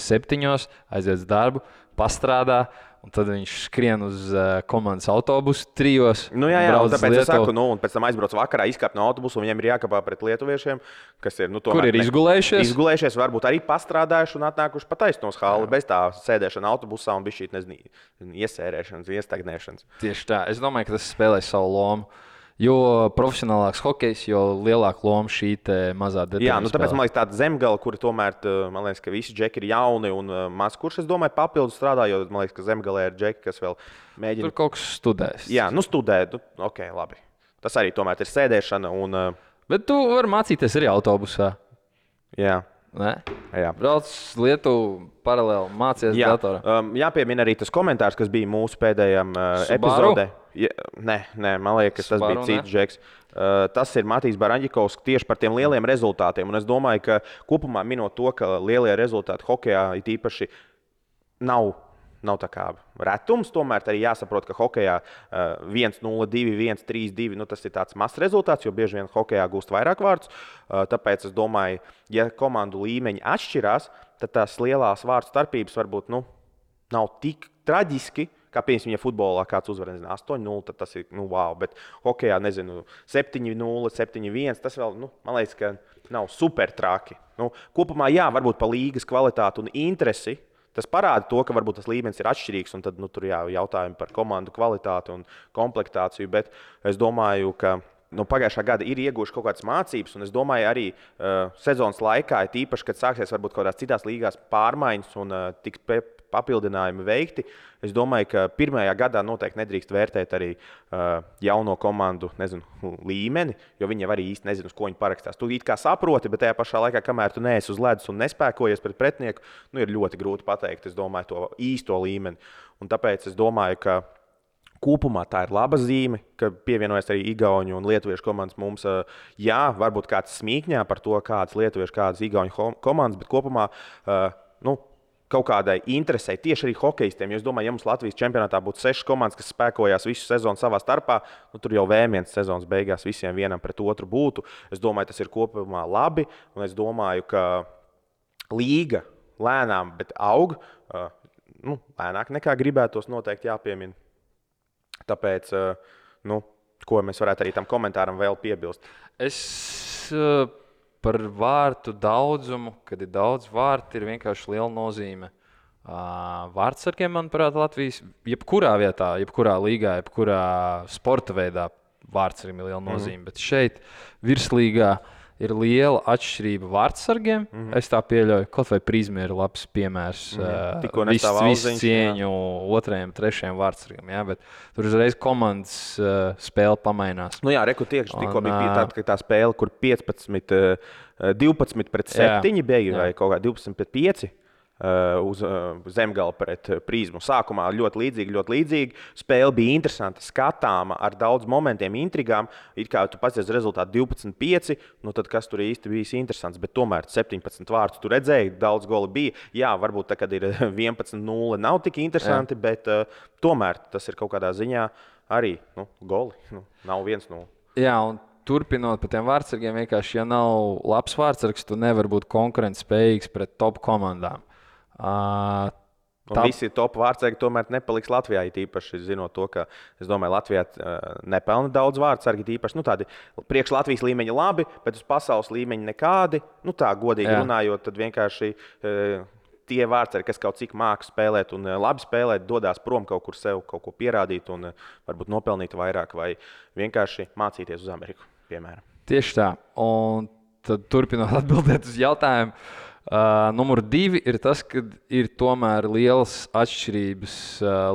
7, aiziet uz darbu, pastrādā. Un tad viņš skrien uz komandas autobusu 3.
Un tāpēc es saku, un pēc tam aizbrauc vakarā, izkāp no autobusu, un viņiem ir jākāpā pret lietuviešiem, kas ir,
kur ir izgulējušies.
Izgulējušies, varbūt arī pastrādājuši un atnākuši pa taisnos hali bez tā sēdēšana autobusā un bija šī, iesērēšanas, iestagnēšanas.
Tieši tā. Es domāju, ka tas spēlē savu lomu. Jo profesionālāks hokejs, jo lielāka loma šī mazā detaļa.
Jā, tāpēc man liekas, tāda Zemgala, kuri tomēr, man liekas, ka visi džeki ir jauni un maz kurš, es domāju, papildus strādā, jo man liekas, ka Zemgalē ir džeki, kas vēl mēģina.
Tur kaut kas studēs.
Jā, studē, ok, labi. Tas arī tomēr ir sēdēšana un.
Bet tu vari mācīties arī autobusā.
Jā.
Nē?
Jā.
Brauc Lietuvu paralēli, mācies datorā.
Jāpiemina arī tas komentārs, kas bija mūsu pēdējām epizodē. Nē, man liekas, tas bija cits džeks. Tas ir Matīs Baraņģikovs tieši par tiem lieliem rezultātiem. Un es domāju, ka kopumā minot to, ka lielie rezultāti hokejā it īpaši nav tā kā retums. Tomēr arī jāsaprot, ka hokejā 1-0, 2-1, 3-2 tas ir tāds mazs rezultāts, jo bieži vien hokejā gūst vairāk vārdus. Tāpēc es domāju, ja komandu līmeņi atšķirās, tad tās lielās vārdu starpības varbūt nav tik traģiski. Kā piemēram, ja futbolā kāds uzvar 8-0, tad tas ir wow. Bet hokejā 7-0, 7-1. Tas vēl, man liekas, ka nav super traki. Kopumā, jā, varbūt pa līgas kvalitāti un interesi. Tas parāda to, ka varbūt tas līmenis ir atšķirīgs, un tad tur jautājumi par komandu kvalitāti un komplektāciju. Bet es domāju, ka pagājušā gada ir ieguvuši kaut kādas mācības, un es domāju, arī sezonas laikā, tīpaši, kad sāksies varbūt kaut kādās citās līgās pārmaiņas un tiks papildinājumi veikti. Es domāju, ka pirmajā gadā noteikti nedrīkst vērtēt arī jauno komandu līmeni, jo viņi jau arī īsti nezina, uz ko viņi parakstās. Tu it kā saproti, bet tajā pašā laikā, kamēr tu neesi uz ledus un nespēkojies pret pretinieku, ir ļoti grūti pateikt, es domāju, to īsto līmeni. Un tāpēc es domāju, ka kopumā tā ir laba zīme, ka pievienojas arī igauņu un lietuviešu komandas mums. Jā, varbūt kāds smīkņā par to, kādas lietuviešu, kādas igauņu komandas, bet kopumā kaut kādai interesei tieši arī hokejistiem. Jo es domāju, ja mums Latvijas čempionātā būtu 6 komandas, kas spēkojās visu sezonu savā starpā, tur jau V1 sezonas beigās visiem vienam pret otru būtu. Es domāju, tas ir kopumā labi, un es domāju, ka līga lēnām, bet aug. Lēnāk nekā gribētos, noteikti jāpiemina. Tāpēc, ko mēs varētu arī tam komentāram vēl piebilst?
Es par vārtu daudzumu, kad ir daudz vārtu, ir vienkārši liela nozīme. Vārtsargiem, manuprāt, Latvijas jebkurā vietā, jebkurā līgā, jebkurā sporta veidā vārtsargiem ir liela nozīme. Bet šeit virslīgā ir liela atšķirība vārtsargiem. Es tā pieļauju, kaut vai Prizma ir labs piemērs. Visu cieņu otrajam, trešajam vārtsargam. Jā, bet tur uzreiz komandas spēle pamainās.
Tikko bija tāda, ka tā spēle, kur 12 pret 7 bija, vai kaut kā 12 pret 5. Uz Zemgala pret Prizmu. Sākumā ļoti līdzīgi. Spēle bija interesanta, skatāma, ar daudz momentiem, intrigām. It kā tu paskaties rezultātu 12-5, tad kas tur īsti bijis interesants. Bet tomēr 17 vārdus tu redzēji, daudz goli bija. Jā, varbūt tā, kad ir 11-0, nav tik interesanti, bet tomēr tas ir kaut kādā ziņā arī goli. Nav 1-0.
Jā, un turpinot par tiem vārdsargiem, vienkārši, ja nav labs vārdsargs, tu nevar būt konkurentspējīgs pret top komandām.
Visi top vārdsargi tomēr nepaliks Latvijā, īpaši zinot to, ka es domāju, Latvijā nepelna daudz vārdsargi, īpaši tādi priekš Latvijas līmeņa labi, bet uz pasaules līmeņa nekādi. Tā godīgi runājot, tad vienkārši tie vārdsargi, kas kaut cik māks spēlēt un labi spēlēt, dodās prom kaut kur sev, kaut ko pierādīt un varbūt nopelnīt vairāk vai vienkārši mācīties uz Ameriku, piemēram.
Tieši tā. Un tad turpinot atbildēt uz jautājumu. Numur 2 ir tas, ka ir tomēr lielas atšķirības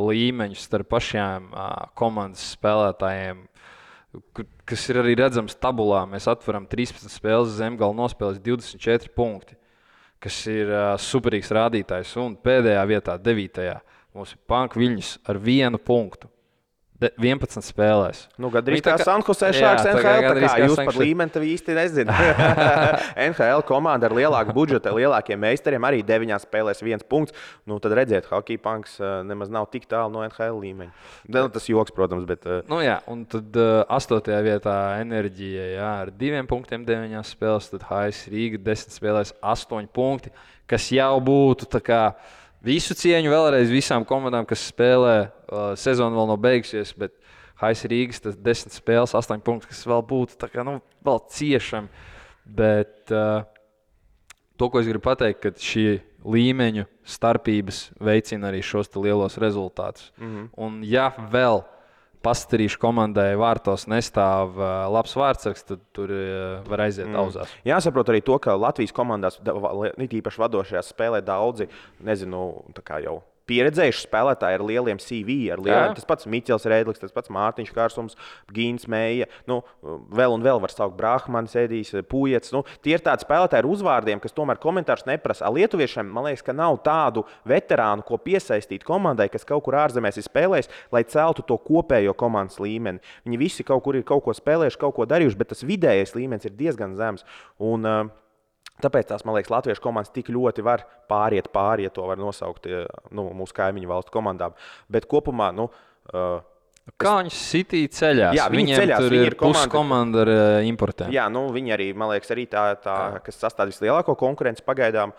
līmeņus starp pašiem komandas spēlētājiem, kas ir arī redzams tabulā. Mēs atveram 13 spēles, Zemgala nospēlēs 24 punkti, kas ir superīgs rādītājs. Un pēdējā vietā, 9. mums ir Panka Viļņus ar 1 punktu. 11 spēlēs.
Gandrīz kā Sanhosē Šāks NHL. Tā kā jūs par līmeni tev īsti nezināt. NHL komanda ar lielāku budžetu, lielākiem meistariem arī 9 spēlēs 1 punkts. Tad redziet, Hockey Punks nemaz nav tik tālu no NHL līmeņa. Tas joks, protams, bet...
un tad 8. vietā Enerģija ar 2 punktiem 9 spēlēs, tad HS Rīga 10 spēlēs 8 punkti, kas jau būtu tā kā... Visu cieņu vēlreiz visām komandām, kas spēlē, sezona vēl nav beigusies, bet HS Rīgas tas 10 spēles, 8 punkti, kas vēl būtu tā kā, vēl ciešami. Bet to, ko es gribu pateikt, ka šī līmeņu starpības veicina arī šos lielos rezultātus. Un ja vēl Pastarīšu komandai vārtos nestāv labs vārdsargs, tad tur var aiziet auzās.
Jāsaprot arī to, ka Latvijas komandās, īpaši vadošajās, spēlē daudzi, tā kā jau pieredzējuši spēlētāji ar lieliem CV, ar lieliem. Tas pats Miķels Rēdlis, tas pats Mārtiņš Kārsums, Gīns Meija, vēl un vēl var saukt Brahmanis, Edijs, Pujets. Tie ir tādi spēlētāji ar uzvārdiem, kas tomēr komentārus neprasa. Lietuviešiem, man liekas, ka nav tādu veterānu, ko piesaistīt komandai, kas kaut kur ārzemēs ir spēlējis, lai celtu to kopējo komandas līmeni. Viņi visi kaut kur ir kaut ko spēlējuši, kaut ko darījuši, bet tas vidējais līmenis ir diezgan zems. Tāpēc tās, man liekas, latviešu komandas tik ļoti var pāriet, ja to var nosaukt mūsu kaimiņu valstu komandām. Bet kopumā,
kā viņi sitīja ceļās?
Jā, viņi ceļās.
Tur ir puskomanda ar importiem.
Jā, viņi arī, man liekas, arī tā kas sastāv vislielāko konkurenci pagaidām.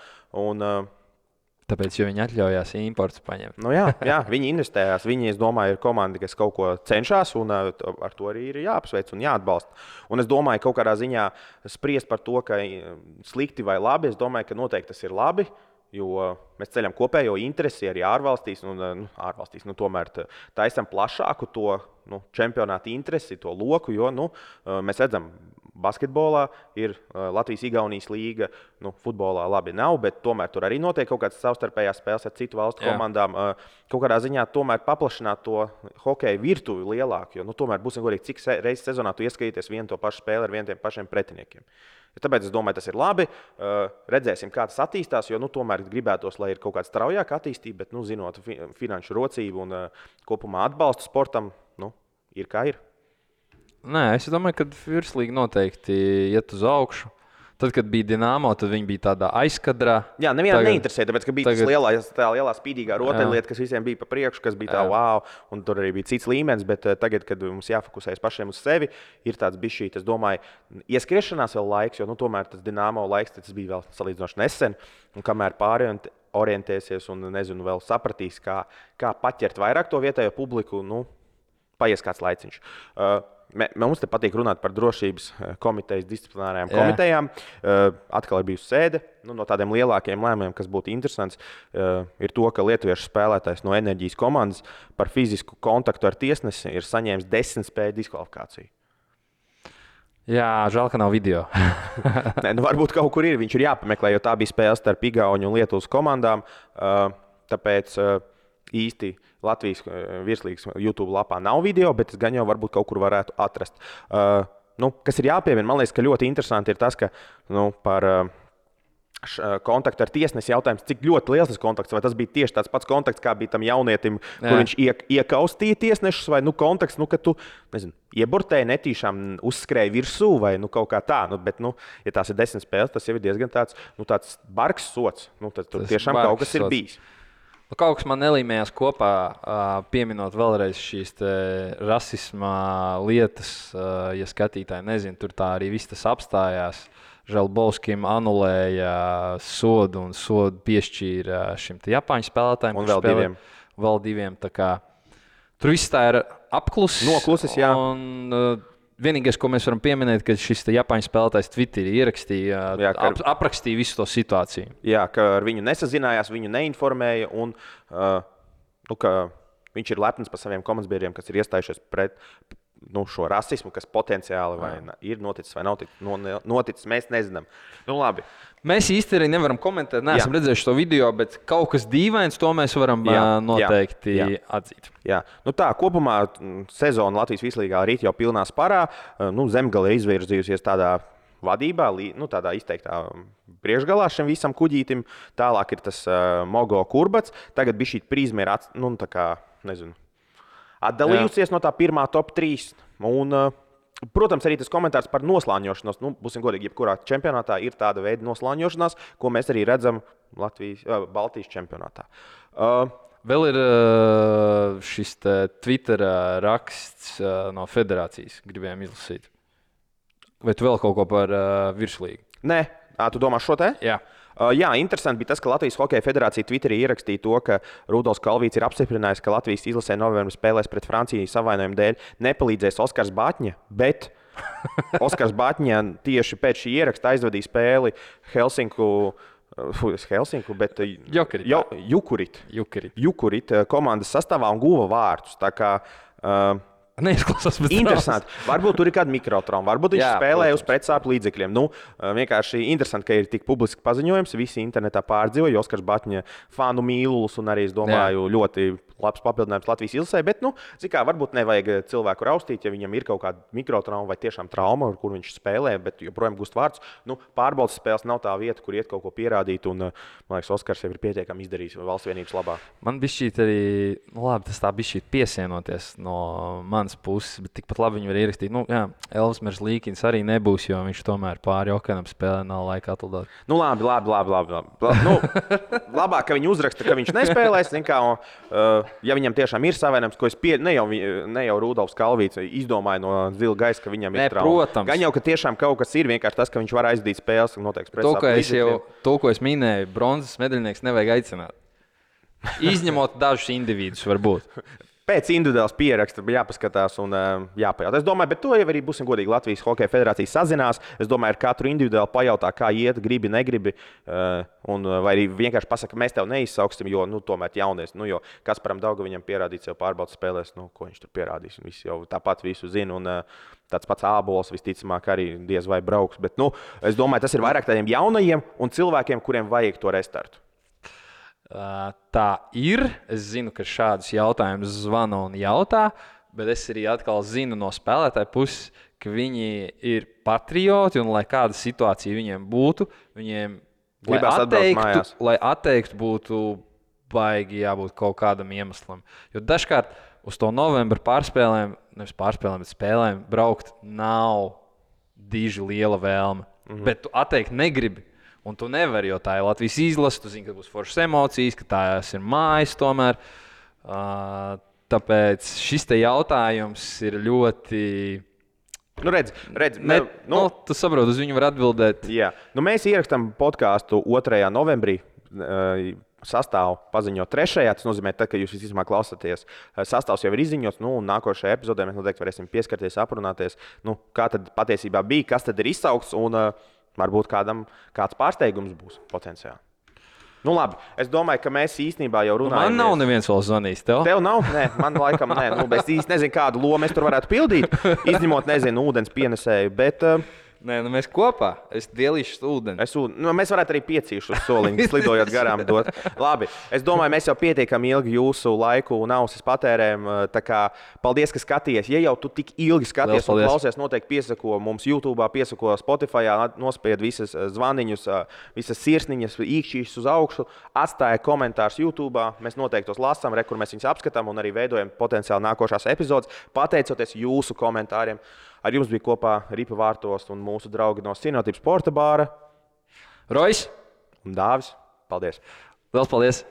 Tāpēc, jo viņi atļaujās importus paņemt.
Jā, viņi investējās. Viņi, es domāju, ir komanda, kas kaut ko cenšas, un ar to arī ir jāapsveic un jāatbalsta. Un es domāju, kaut kādā ziņā spriest par to, ka slikti vai labi, es domāju, ka noteikti tas ir labi, jo mēs ceļam kopējo interesi arī ārvalstīs, tomēr taisam plašāku to čempionāta interesi, to loku, jo mēs redzam, basketbolā ir Latvijas-Igaunijas līga, futbolā labi nav, bet tomēr tur arī notiek kaut kādas savstarpējās spēles ar citu valstu komandām. Kaut kādā ziņā tomēr paplašināt to hokeja virtuvi lielāku, jo tomēr būsim godīgi, cik reizes sezonā tu ieskatīties vienu to pašu spēli ar vieniem pašiem pretiniekiem. Tāpēc es domāju, tas ir labi. Redzēsim, kā tas attīstās, jo tomēr gribētos, lai ir kaut kāda straujāka attīstība, bet zinot finanšu rocību un kopumā atbalstu sportam, ir kā ir.
Nē, es domāju, ka virslīga noteikti iet uz augšu. Tad, kad bija Dinamo, tad viņi bija tādā aizkadrā.
Jā, nevienam neinteresē, tāpēc, ka bija tā lielā spīdīgā rotaļlieta, kas visiem bija pa priekšu, kas bija tā wow, un tur arī bija cits līmenis, bet tagad, kad mums jāfokusējas pašiem uz sevi, ir tāds bišķīt, es domāju, ieskriešanās vēl laiks, jo tomēr tas Dinamo laiks, tas bija vēl salīdzinoši nesen, un kamēr orientēsies un, vēl sapratīs, kā paķert vairāk to vietējo publiku, paies kāds laiciņš. Mums te patīk runāt par drošības komitejas disciplinārajām komitejām. Atkal ir bijusi sēde. No tādiem lielākiem lēmumiem, kas būtu interesants, ir to, ka lietuviešu spēlētājs no Enerģijas komandas par fizisku kontaktu ar tiesnesi ir saņēmis 10 spēļu diskvalifikāciju.
Jā, žēl, ka nav video.
Nē, varbūt kaut kur ir. Viņš ir jāpameklē, jo tā bija spēle starp Igauņu un Lietuvas komandām. Tāpēc īsti Latvijas virslīgas YouTube lapā nav video, bet es gan jau varbūt kaut kur varētu atrast. Kas ir jāpiemina, man liekas, ka ļoti interesanti ir tas, ka par kontaktu ar tiesnesi jautājums, cik ļoti liels tas kontakts, vai tas bija tieši tāds pats kontakts, kā bija tam jaunietim, kur viņš iekaustīja tiesnešus, vai kontakts, ka tu, ieburtēji netīšām uzskrēji virsū, vai kaut kā tā. Bet, ja tās ir 10 spēles, tas jau ir diezgan tāds bargs sots. Tad tur tiešām kaut kas ir bijis.
Kaut kas man nelīmējās kopā, pieminot vēlreiz šīs rasisma lietas, ja skatītāji nezina, tur tā arī viss tas apstājās. Želbovskim anulēja sodu un sodu piešķīra šim Japāņu spēlētājiem.
Un
vēl diviem. Tur viss tā ir apklusis.
Noklusis, jā.
Vienīgais, ko mēs varam pieminēt, ka šis Japāņu spēlētājs Twitterī ierakstīja, aprakstīja visu to situāciju.
Jā, ka ar viņu nesazinājās, viņu neinformēja un ka viņš ir lepns par saviem komandas-biedriem, kas ir iestājušies pret šo rasismu, kas potenciāli ir noticis vai nav noticis, mēs nezinām. Labi.
Mēs īsti arī nevaram komentēt, neesam redzējuši to video, bet kaut kas dīvains, to mēs varam noteikti atzīt.
Jā. Kopumā sezona Latvijas virslīgā rīt jau pilnā sparā. Zemgale ir izvirzījusies tādā vadībā, tādā izteiktā priekšgalā šim visam kuģītim. Tālāk ir tas Mogo Kurbats. Tagad bija šī prizma ir atdalījusies no tā pirmā top 3. Un, protams, arī tas komentārs par noslāņošanos. Būsim godīgi, jebkurā čempionātā ir tāda veida noslāņošanās, ko mēs arī redzam Baltijas čempionātā.
Vēl ir šis Twitter raksts no federācijas, gribējām izlasīt. Vai tu vēl kaut ko par virslīgu?
Nē, tu domā šo te?
Jā.
Jā, interesanti bija tas, ka Latvijas Hokeja federācija Twitterī ierakstīja to, ka Rudolfs Kalvīts ir apstiprinājis, ka Latvijas izlasē novembrī spēlēs pret Franciju savainojumu dēļ nepalīdzēs Oskars Batņa, bet Oskars Batņa tieši pēc šī ieraksta aizvadīja spēli bet Jukurit komandas sastāvā un guva vārtus. Tā kā
neizklausās pēc
Interesanti. Varbūt tur ir kāda mikrotrauma, varbūt viņš spēlē uz pretsāpju līdzekļiem. Nu, vienkārši interesanti, ka ir tik publiski paziņojums. Visi internetā pārdzīvoja Oskars Batņa fanu mīlulis un arī, es domāju, ļoti labs papildinājums Latvijas ilsē. Bet, nu, kā, varbūt nevajag cilvēku raustīt, ja viņam ir kaut kāda mikrotrauma vai tiešām trauma, kur viņš spēlē, bet joprojām gūst vārdus. Nu, pārbaudas spēles nav tā vieta, kur iet kaut ko pierādīt. Un, man liekas, Oskars jau ir pietiekami izdarījis valsts vienības labā.
Man bija šī arī, tas tā bija šī piesienoties no manas puses, bet tikpat labi viņi var ierakstīt. Elvis Merzlīkins arī nebūs, jo viņš tomēr pāri Okanam spēlē, nav laika atlidot.
Nu, labi. Nu, labāk, ka viņi uzraksta, ka viņš nespēlēs. Ja viņam tiešām ir savainojums, ko es ne jau Rudolfs Kalvīts izdomāju no zila gaisa, ka viņam ir trauma.
Protams.
Gan jau, ka tiešām kaut kas ir, vienkārši tas, ka viņš var aizdīt spēles un noteikti pretsāpju.
To, ko es minēju, bronzas medaļnieks nevajag aicināt. Izņemot dažus individus, varbūt.
Pēc individuālas pieraksta jāpaskatās un jāpajautā. Es domāju, bet to jau arī būsim godīgi. Latvijas Hokeja federācija sazinās. Es domāju, ar katru individuāli pajautā, kā iet, gribi, negribi. Vai arī vienkārši pasaka, mēs tev neizsauksim, jo tomēr jaunies. Jo Kasparam Daugaviņam pierādīt sev pārbaudas spēlēs, ko viņš tur pierādīs. Visi jau tāpat visu zina. Un tāds pats Ābols visticamāk arī diez vai brauks. Bet es domāju, tas ir vairāk tādiem jaunajiem un cilvēkiem, kuriem vajag to restartu.
Tā ir. Es zinu, ka šādus jautājumus zvana un jautā, bet es arī atkal zinu no spēlētāja puses, ka viņi ir patrioti un lai kāda situācija viņiem būtu, viņiem, lai atteiktu, būtu baigi jābūt kaut kādam iemeslam. Jo dažkārt uz to novembra bet spēlēm braukt nav diži liela vēlme, bet tu atteikt negribi. Un tu nevari, jo tā ir Latvijas izlase, tu zini, ka būs foršas emocijas, ka tās ir mājas tomēr. Tāpēc šis te jautājums ir ļoti... Tu saproti, uz viņu var atbildēt.
Jā. Mēs ierakstām podkāstu 2. novembrī. Sastāvu paziņo 3. Tas nozīmē, ka jūs visticamāk klausāties. Sastāvs jau ir izziņots. Nākošajā epizodē mēs noteikti varēsim pieskarties, aprunāties, kā tad patiesībā bija, kas tad ir izsaukts. Varbūt kāds pārsteigums būs potenciāli. Labi, es domāju, ka mēs īstenībā jau runājam.
Man nav neviens vēl zvanījis.
Tev nav? Nē, man laikam nē. Es īsti nezinu, kādu lomu es tur varētu pildīt. Izņemot, ūdens pienesēju. Bet,
Nē, mēs kopā. Es dielīšu ūdeni.
Mēs varētu arī piecīšu uz soliņu, slidojot garām dot. Labi, es domāju, mēs jau pietiekami ilgi jūsu laiku un ausis patērējam. Paldies, ka skaties. Ja jau tu tik ilgi skaties un klausies, noteikti piesako mums YouTube, piesako Spotify, nospied visas zvaniņus, visas sirsniņas, īkšķīšas uz augšu, atstāja komentārus YouTube. Mēs noteikti tos lasām, kur mēs viņus apskatām un arī veidojam potenciāli nākošās epizodes, pateicoties jūsu komentāriem. Ar jums bija kopā Ripa Vārtos un mūsu draugi no Cienotības sporta bāra.
Rojs
un Dāvis. Paldies!
Liels paldies!